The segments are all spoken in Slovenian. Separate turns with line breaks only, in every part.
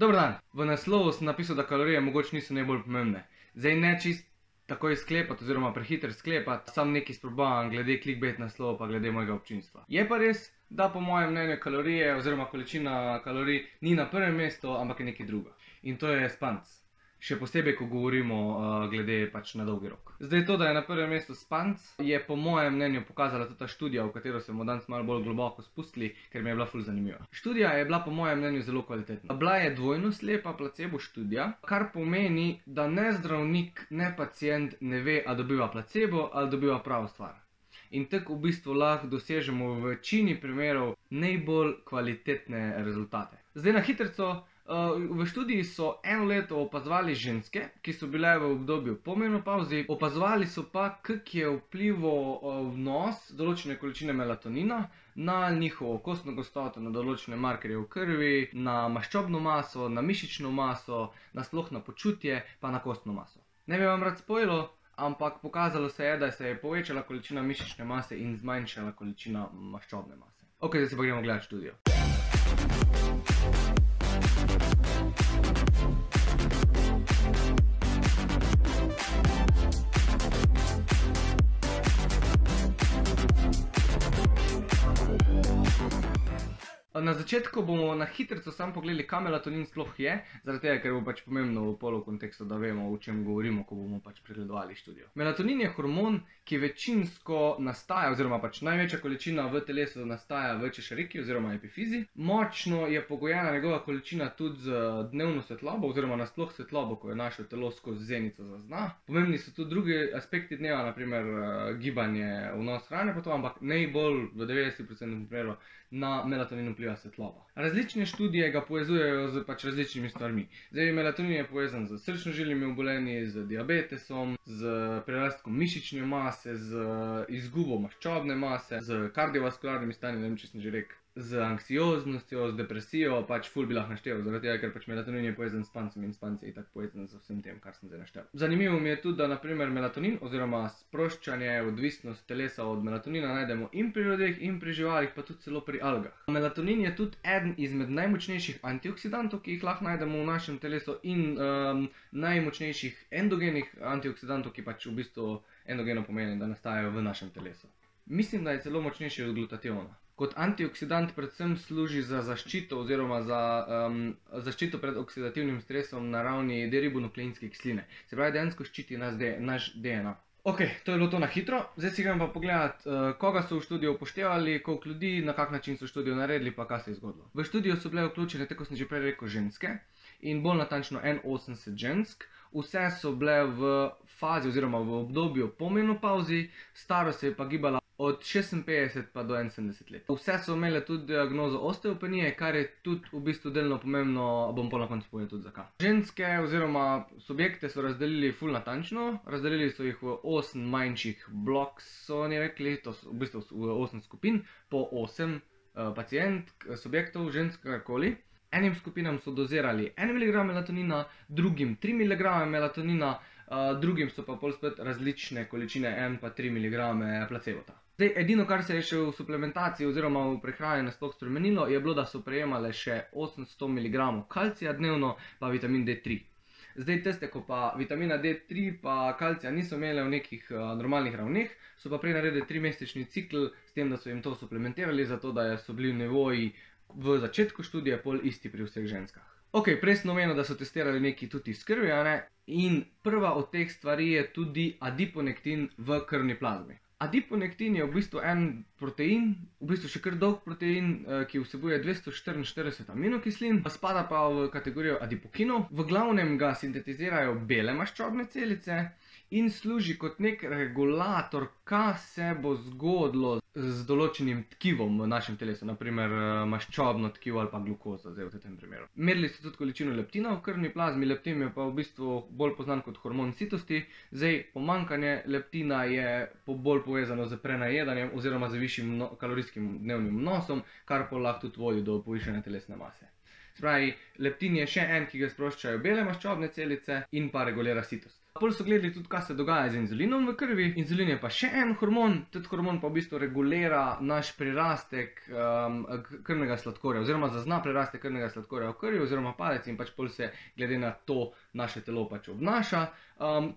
Dober dan, v naslovu sem napisal, da kalorije mogoče niso najbolj pomembne. Zdaj ne čist takoj sklepati oziroma prehiter sklepati, sam nekaj sprobavam glede clickbait naslova pa glede mojega občinstva. Je pa res, da po mojem mnenju kalorije oziroma količina kalorij ni na prvem mestu, ampak je nekaj druga. In to je spanc. Še posebej, ko govorimo glede pač na dolgi rok. Zdaj to, da je na prvem mestu spanc, je po mojem mnenju pokazala tudi ta študija, v katero se bomo danes malo bolj globoko spustili, ker mi je bila ful zanimiva. Študija je bila po mojem mnenju zelo kvalitetna. Bila je dvojno slepa placebo študija, kar pomeni, da ne zdravnik, ne pacient ne ve, a dobiva placebo ali dobiva pravo stvar. In tako v bistvu lahko dosežemo v večini primerov najbolj kvalitetne rezultate. Zdaj na hitrico. V študiji so eno leto opazovali ženske, ki so bile v obdobju po menopavzi, opazovali so pa, kak je vplival vnos določene količine melatonina na njihovo kostno gostoto, na določene markerje v krvi, na maščobno maso, na mišično maso, nasploh na počutje, pa na kostno maso. Ne bi vam rad spojilo, ampak pokazalo se je, da se je povečala količina mišične mase in zmanjšala količina maščobne mase. Ok, zdaj se pa gremo gledati študijo. Na začetku bomo na hitrico samo pogledali, kaj melatonin sploh je, zaradi tega, ker bo pač pomembno v polu kontekstu, da vemo, o čem govorimo, ko bomo pač pregledovali študijo. Melatonin je hormon, ki večinsko nastaja, oziroma pač največja količina v telesu nastaja v češariki oziroma epifizi. Močno je pogojena njegova količina tudi z dnevno svetlobo, oziroma nasploh svetlobo, ko je naše telo skozi zenico zazna. Pomembni so tudi drugi aspekti dneva, naprimer gibanje, vnos hrane pa to, ampak najbolj v 90% primerov na melatonin vpliva svetloba. Različne študije ga povezujejo z pač različnimi stvarmi. Zdaj, melatonin je povezan z srčno-žilnimi obolenji, z diabetesom, z prerastkom mišične mase, z izgubo maščobne mase, z kardiovaskularnimi stanji, ne vem, če sem že rekel, z anksioznostjo, z depresijo, pač ful bi lahko naštel, zaradi tega, ker pač melatonin je povezan s spancem in spanc je itak povezan z vsem tem, kar sem zdaj naštel. Zanimivo mi je tudi, da naprimer melatonin oziroma sproščanje, odvisnost telesa od melatonina najdemo in pri ljudeh in pri živalih, pa tudi celo pri algah. Melatonin je tudi eden izmed najmočnejših antioksidantov, ki jih lahko najdemo v našem telesu in najmočnejših endogenih antioksidantov, ki pač v bistvu endogeno pomeni, da nastajajo v našem telesu. Mislim, da je celo močnejši od glutationa. Kot antioksidant predvsem služi za zaščito oziroma za zaščito pred oksidativnim stresom na ravni deribonukleinske kisline. Se pravi, dejansko ščiti naš DNA. Ok, to je bilo to na hitro. Zdaj si gremo pa pogledati, koga so v študijo upoštevali, koliko ljudi, na kak način so študijo naredili, pa kaj se je zgodilo. V študijo so bile vključene, tako sem že prej rekel, ženske in bolj natančno 81 žensk. Vse so bile v fazi oziroma v obdobju po menopavzi, starost se je pa gibala od 56 pa do 71 let. Vse so imele tudi diagnozo osteopenije, kar je tudi v bistvu delno pomembno, bom pa na koncu povedal tudi zakaj. Ženske oziroma subjekte so razdelili ful natančno, razdelili so jih v 8 manjših blokov, so oni rekli, to so v bistvu v 8 skupin, po 8 subjektov, žensk, karkoli. Enim skupinam so dozirali 1 mg melatonina, drugim 3 mg melatonina, drugim so pa pol spet različne količine 1 pa 3 mg placebota. Zdaj, edino, kar se je še v suplementaciji oziroma v prehrani nasploh spremenilo, je bilo, da so prejemale še 800 mg kalcija dnevno, pa vitamin D3. Zdaj, tiste, ko pa vitamina D3 pa kalcija niso imele v nekih normalnih ravneh, so pa prej naredili 3-mesečni cikl s tem, da so jim to suplementirali, zato da so bili nivoji v začetku študije pol isti pri vseh ženskah. Ok, prej sem omenil, da so testirali nekaj tudi iz krvi, in prva od teh stvari je tudi adiponektin v krvni plazmi. Adiponektin je v bistvu en protein, v bistvu še kar dolg protein, ki vsebuje 244 aminokislin, spada pa v kategorijo adipokinov. V glavnem ga sintetizirajo bele maščobne celice in služi kot nek regulator, kaj se bo zgodilo z določenim tkivom v našem telesu, naprimer maščobno tkivo ali pa glukoza, zdaj v tem primeru. Merili so tudi količino leptina v krvni plazmi, leptin je pa v bistvu bolj poznan kot hormon sitosti. Zdaj, pomanjkanje leptina je bolj povezano z prenajedanjem oziroma z višjim kalorijskim dnevnim vnosom, kar pa lahko tudi vodi do povišane telesne mase. Se pravi, leptin je še en, ki ga sproščajo bele maščobne celice in pa regulira sitost. Pol so gledali tudi, kaj se dogaja z inzulinom v krvi. Inzulin je pa še en hormon, tudi hormon pa v bistvu regulira naš prirastek krvnega sladkorja, oziroma zazna prirastek krvnega sladkorja v krvi, oziroma padec in pač pol se glede na to naše telo pač obnaša.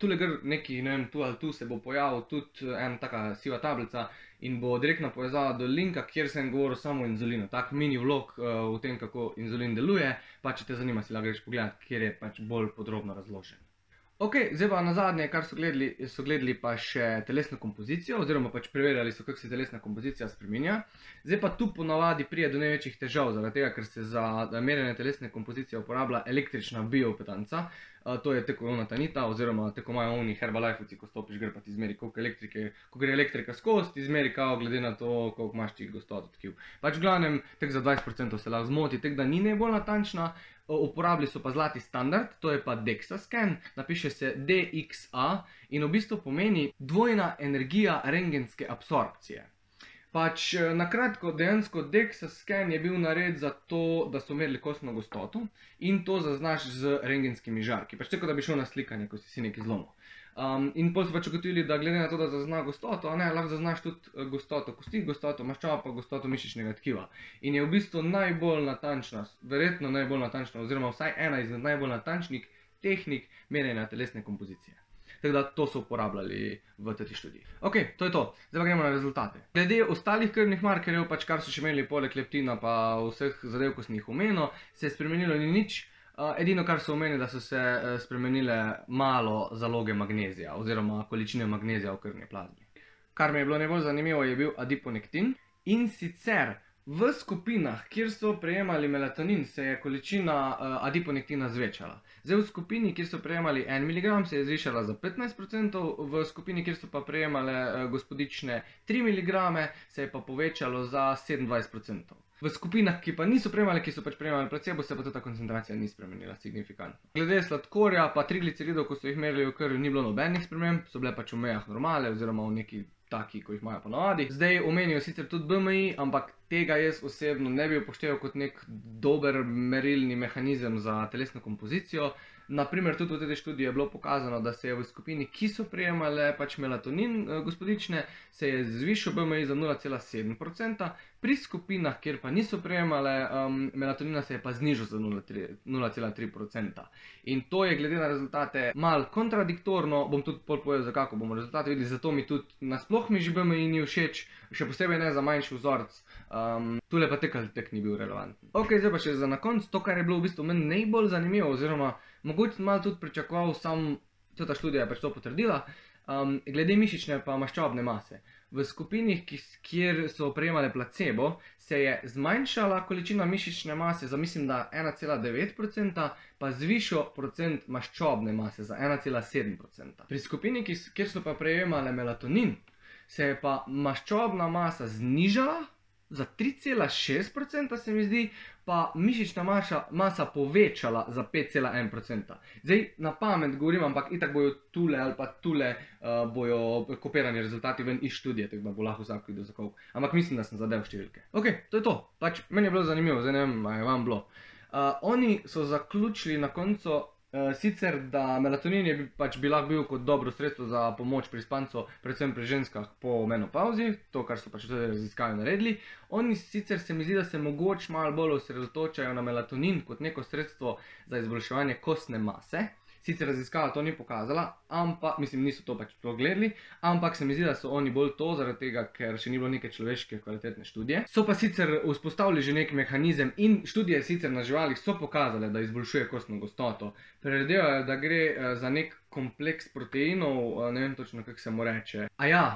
Tule gre neki, ne vem, tu ali tu se bo pojavil tudi ena taka siva tablica in bo direktna povezava do linka, kjer sem govoril samo o inzulinu. Tak mini vlog v tem, kako inzulin deluje, pa če te zanima, si lahko greš pogledat, kjer je pač bolj podrobno razložen. Ok, zdaj pa nazadnje, kar so gledali pa še telesno kompozicijo, oziroma pač preverjali so, kako se telesna kompozicija spreminja. Zdaj pa tu ponavadi pride do največjih težav, zaradi tega, ker se za merjenje telesne kompozicije uporablja električna bioimpedanca. To je tako ona tanita, oziroma tako imajo oni Herbalifeci, ko stopiš, gre pa ti izmeri, koliko elektrike, ko gre elektrika skozi, ti izmeri kao glede na to, koliko imaš ti gostoto tkiv. Pač v glavnem, tako za 20% se lahko zmoti, tako da ni najbolj natančna. Uporabili so pa zlati standard, to je pa DEXA scan, napiše se DXA in v bistvu pomeni dvojna energija rentgenske absorpcije. Pač na kratko, dejansko DEXA scan je bil narejen za to, da so merili kostno gostoto in to zaznaš z rentgenskimi žarki. Pač tako, da bi šel na slikanje, ko si nekaj zlomil. In potem so pač ugotovili, da glede na to, da zazna gostoto, lahko zaznaš tudi gostoto kosti, gostoto maščob, pa gostoto mišičnega tkiva. In je v bistvu najbolj natančna, verjetno najbolj natančna, oziroma vsaj ena izmed najbolj natančnih tehnik merjenja telesne kompozicije. Tako da to so uporabljali v tej študiji. Ok, to je to. Zdaj pa gremo na rezultate. Glede ostalih krvnih markerjev, pač kar so še imeli poleg leptina pa vseh zadev, ko sem jih omenil, se je spremenilo ni nič. Edino, kar so omenili, da so se spremenile malo zaloge magnezija oziroma količine magnezija v krvni plazmi. Kar mi je bilo najbolj zanimivo, je bil adiponektin. In sicer v skupinah, kjer so prejemali melatonin, se je količina adiponektina zvečala. Zdaj v skupini, kjer so prejemali 1 mg, se je zvišala za 15%, v skupini, kjer so pa prejemale gospodične 3 mg, se je pa povečalo za 27%. V skupinah, ki pa niso prejemali, ki so pač prejemali placebo, se pa ta koncentracija ni spremenila signifikantno. Glede sladkorja pa trigliceridov, ko so jih merili v krvi, ni bilo nobenih sprememb, so bile pač v mejah normale oziroma v neki taki, ko jih imajo ponavadi. Zdaj omenijo sicer tudi BMI, ampak tega jaz osebno ne bi upošteval kot nek dober merilni mehanizem za telesno kompozicijo. Naprimer, tudi v tej študiji je bilo pokazano, da se je v skupini, ki so prejemale pač melatonin gospodične, se je zvišal BMI za 0,7%, pri skupinah, kjer pa niso prejemale melatonina, se je pa znižal za 0,3%. In to je glede na rezultate malo kontradiktorno, bom tudi povedal, za kako bomo rezultate videli, zato mi tudi nasploh mi že BMI ni všeč, še posebej ne za manjši vzorec. Tule pa tek ni bil relevanten. Ok, zdaj pa še za na konc, to, kar je bilo v bistvu meni najbolj zanimivo, oziroma mogoče malo tudi pričakoval, ta študija je pač to potrdila, glede mišične pa maščobne mase. V skupinih, kjer so prejemale placebo, se je zmanjšala količina mišične mase za mislim, da 1,9%, pa zvišal procent maščobne mase za 1,7%. Pri skupini, kjer so pa prejemale melatonin, se je pa maščobna masa znižala za 3,6%, se mi zdi, pa mišična masa povečala za 5,1%. Zdaj na pamet govorim, ampak itak bojo tule ali pa tule bojo kopirani rezultati ven iz študije, tako da bo lahko vsak videl za koliko. Ampak mislim, da sem zadev številke. Ok, to je to. Pač meni je bilo zanimivo, zdaj ne vem, a je vam bilo. Oni so zaključili na koncu sicer, da melatonin je pač lahko bil kot dobro sredstvo za pomoč pri spancu, predvsem pri ženskah po menopavzi, to, kar so pač tudi raziskave naredili. Oni sicer se mi zdi, da se mogoče malo bolj osredotočajo na melatonin kot neko sredstvo za izboljševanje kostne mase. Sicer raziskava to ni pokazala, ampak, mislim, niso to pač gledali, ampak se mi zdi, da so oni bolj to, zaradi tega, ker še ni bilo neke človeške kvalitetne študije. So pa sicer vzpostavili že nek mehanizem in študije sicer na živalih so pokazale, da izboljšuje kostno gostoto. Predvidevajo, da gre za nek kompleks proteinov, ne vem točno, kako se mu reče.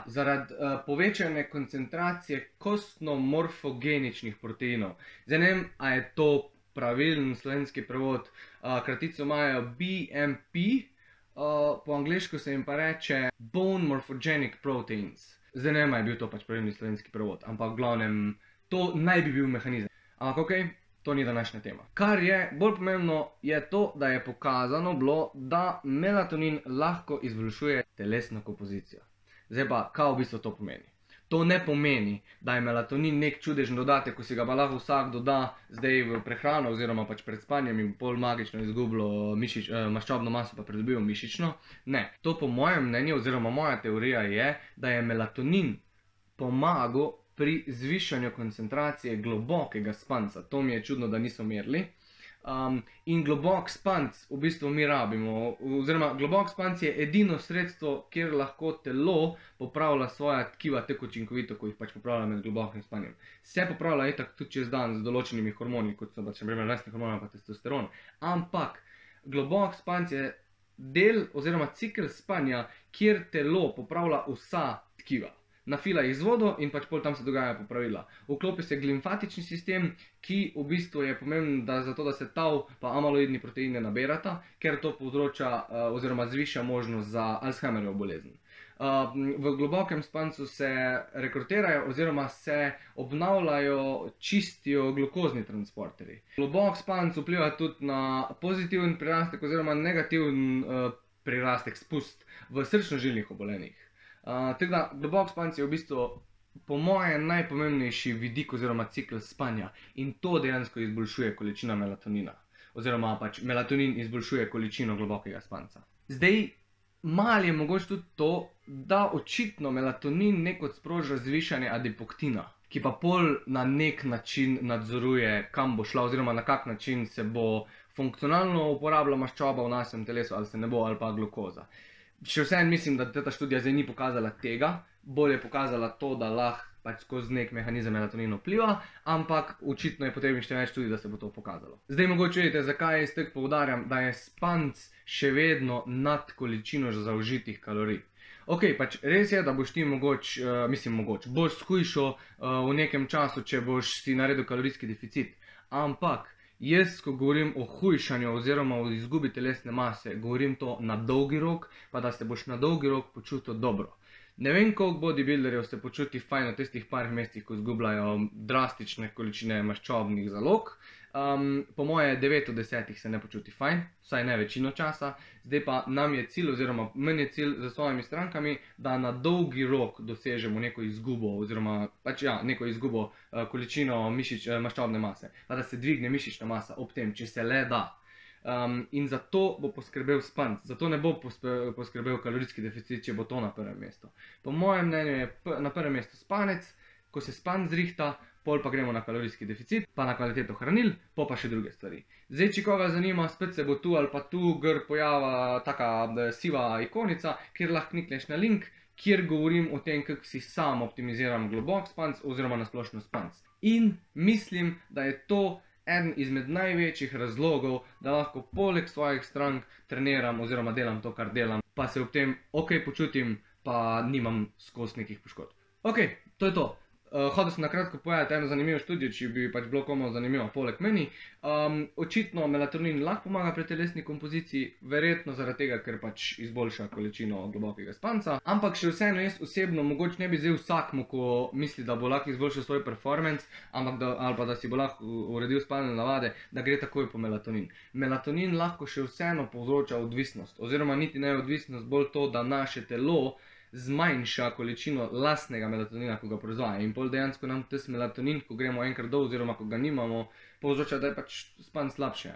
Zaradi povečane koncentracije kostno-morfogeničnih proteinov. Zdaj ne vem, a je to pravilen slovenski prevod, kratico imajo BMP, po angleško se jim pa reče Bone Morphogenic Proteins. Zdaj ne vem, a je bil to pač pravilni slovenski prevod, ampak v glavnem to naj bi bil mehanizem. Ampak ok, to ni današnja tema. Kar je bolj pomembno je to, da je pokazano bilo, da melatonin lahko izboljšuje telesno kompozicijo. Zdaj pa, kaj v bistvu to pomeni? To ne pomeni, da je melatonin nek čudežen dodatek, ko si ga pa lahko vsak doda zdaj v prehrano oziroma pač pred spanjem in pol magično izgubilo maščobno maso pa pridobil mišično. Ne, to po mojem mnenju oziroma moja teorija je, da je melatonin pomagal pri zvišanju koncentracije globokega spanca. To mi je čudno, da niso merili. In globok spanc v bistvu mi rabimo, oziroma globok spanc je edino sredstvo, kjer lahko telo popravlja svoja tkiva tako učinkovito, ko jih pač popravlja med globokim spanjem. Se popravlja itak tudi čez dan z določenimi hormoni, kot so pač naprimer rastni hormoni pa testosteron. Ampak globok spanc je del oziroma cikel spanja, kjer telo popravlja vsa tkiva. Nafila jih z vodo in pač pol tam se dogaja popravila. Vklopi se limfatični sistem, ki v bistvu je pomemben zato, da se tau pa amaloidni proteini ne nabirata, ker to povzroča oziroma zviša možnost za Alzheimerjevo bolezen. V globokem spancu se rekrutirajo oziroma se obnavljajo, čistijo glukozni transporterji. Globok spanc vpliva tudi na pozitiven prirastek oziroma negativen prirastek, spust v srčno-žilnih obolenjih. Tako da globok spanc je v bistvu po mojem najpomembnejši vidik oziroma cikel spanja in to dejansko izboljšuje količino melatonina oziroma pač melatonin izboljšuje količino globokega spanca. Zdaj, malo je mogoče tudi to, da očitno melatonin nekod sproža zvišanje adipoktina, ki pa pol na nek način nadzoruje, kam bo šla oziroma na kak način se bo funkcionalno uporabila maščoba v našem telesu ali se ne bo ali pa glukoza. Še vseeno mislim, da ta študija zdaj ni pokazala tega, bolj je pokazala to, da lahko pač skozi nek mehanizem melatonin vpliva, ampak očitno je potrebno še več študij, da se bo to pokazalo. Zdaj mogoče vedite, zakaj jaz tako poudarjam, da je spanc še vedno nad količino zaužitih kalorij. Ok, pač res je, da boš ti boš shujšal v nekem času, če boš si naredil kalorijski deficit, ampak jaz, ko govorim o hujšanju oziroma o izgubi telesne mase, govorim to na dolgi rok, pa da se boš na dolgi rok počutil dobro. Ne vem, koliko bodybuilderjev se počuti fajn v tistih parih mesecih, ko izgubljajo drastične količine maščobnih zalog. Po moje 9 od 10 se ne počuti fajn, vsaj ne večino časa. Zdaj pa nam je cilj oziroma meni je cilj za svojimi strankami, da na dolgi rok dosežemo neko izgubo oziroma pač ja, neko izgubo količino maščobne mase, pa da se dvigne mišična masa ob tem, če se le da. In za to bo poskrbel spanc, zato ne bo poskrbel kalorijski deficit, če bo to na prvem mestu. Po mojem mnenju je na prvem mestu spanec, ko se spanc zrihta, pol pa gremo na kalorijski deficit, pa na kvaliteto hranil, pa še druge stvari. Zdaj, če koga zanima, spet se bo tu ali pa tu gor pojavila taka siva ikonica, kjer lahko klikneš na link, kjer govorim o tem, kako si sam optimiziram globok spanc oziroma na splošno spanc. In mislim, da je to eden izmed največjih razlogov, da lahko poleg svojih strank treniram oziroma delam to, kar delam, pa se ob tem ok počutim, pa nimam skozi nekih poškodb. Ok, to je to. Hotel sem na kratko povedati eno zanimivo študijo, če bi pač bilo komu zanimivo poleg meni. Očitno melatonin lahko pomaga pri telesni kompoziciji, verjetno zaradi tega, ker pač izboljša količino globokega spanca. Ampak še vseeno jaz osebno mogoče ne bi zdaj vsakmu, ko misli, da bo lahko izboljšal svoj performance, ali pa da si bo lahko uredil spalne navade, da gre takoj po melatonin. Melatonin lahko še vseeno povzroča odvisnost, oziroma niti ne odvisnost, bolj to, da naše telo zmanjša količino lastnega melatonina, ko ga proizvaja. In pol dejansko nam tisti melatonin, ko gremo enkrat dol oziroma ko ga nimamo, povzroča, da je pač spanc slabše.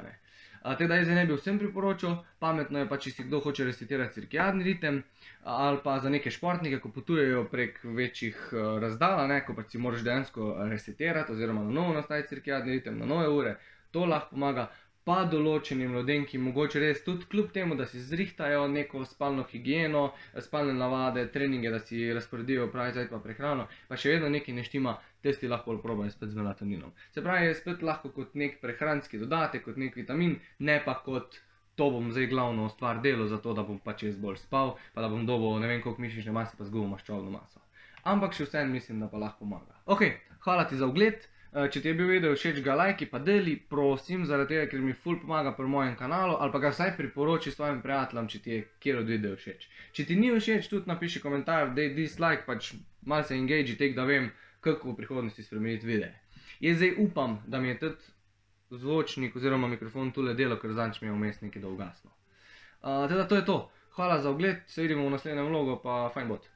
Teda jaz ne bi vsem priporočal, pametno je pa, če si kdo hoče resetirati cirkadiani ritem, ali pa za neke športnike, ko potujejo prek večjih razdalj, ko pač si moraš dejansko resetirati oziroma na novo nastaviti cirkadiani ritem, na nove ure, to lahko pomaga. Pa določenim ljudem, ki mogoče res tudi kljub temu, da si zrihtajo neko spalno higieno, spalne navade, treninge, da si razporedijo pravi cajt pa prehrano, pa še vedno nekaj ne štima, tisti lahko probajo spet z melatoninom. Se pravi, je spet lahko kot nek prehranski dodatek, kot nek vitamin, ne pa kot to bom zdaj glavno stvar delal, zato da bom pač jaz bolj spal, pa da bom dobil ne vem koliko mišične mase pa zgubil maščobno maso. Ampak še vseeno mislim, da pa lahko pomaga. Ok, hvala ti za ogled. Če ti je bil video všeč, ga lajki pa deli, prosim, zaradi tega, ker mi ful pomaga pri mojem kanalu, ali pa ga vsaj priporoči svojim prijateljem, če ti je kjer od video všeč. Če ti ni všeč, tudi napiši komentar, dej dislike, pač malo se engage, tek da vem, kako v prihodnosti spremeniti videe. Jaz zdaj upam, da mi je tudi zvočnik oziroma mikrofon tule delo, ker zadnjič mi je vmes nekaj da ugasnilo. Teda to je to. Hvala za ogled, se vidimo v naslednjem vlogu, pa fajn bot.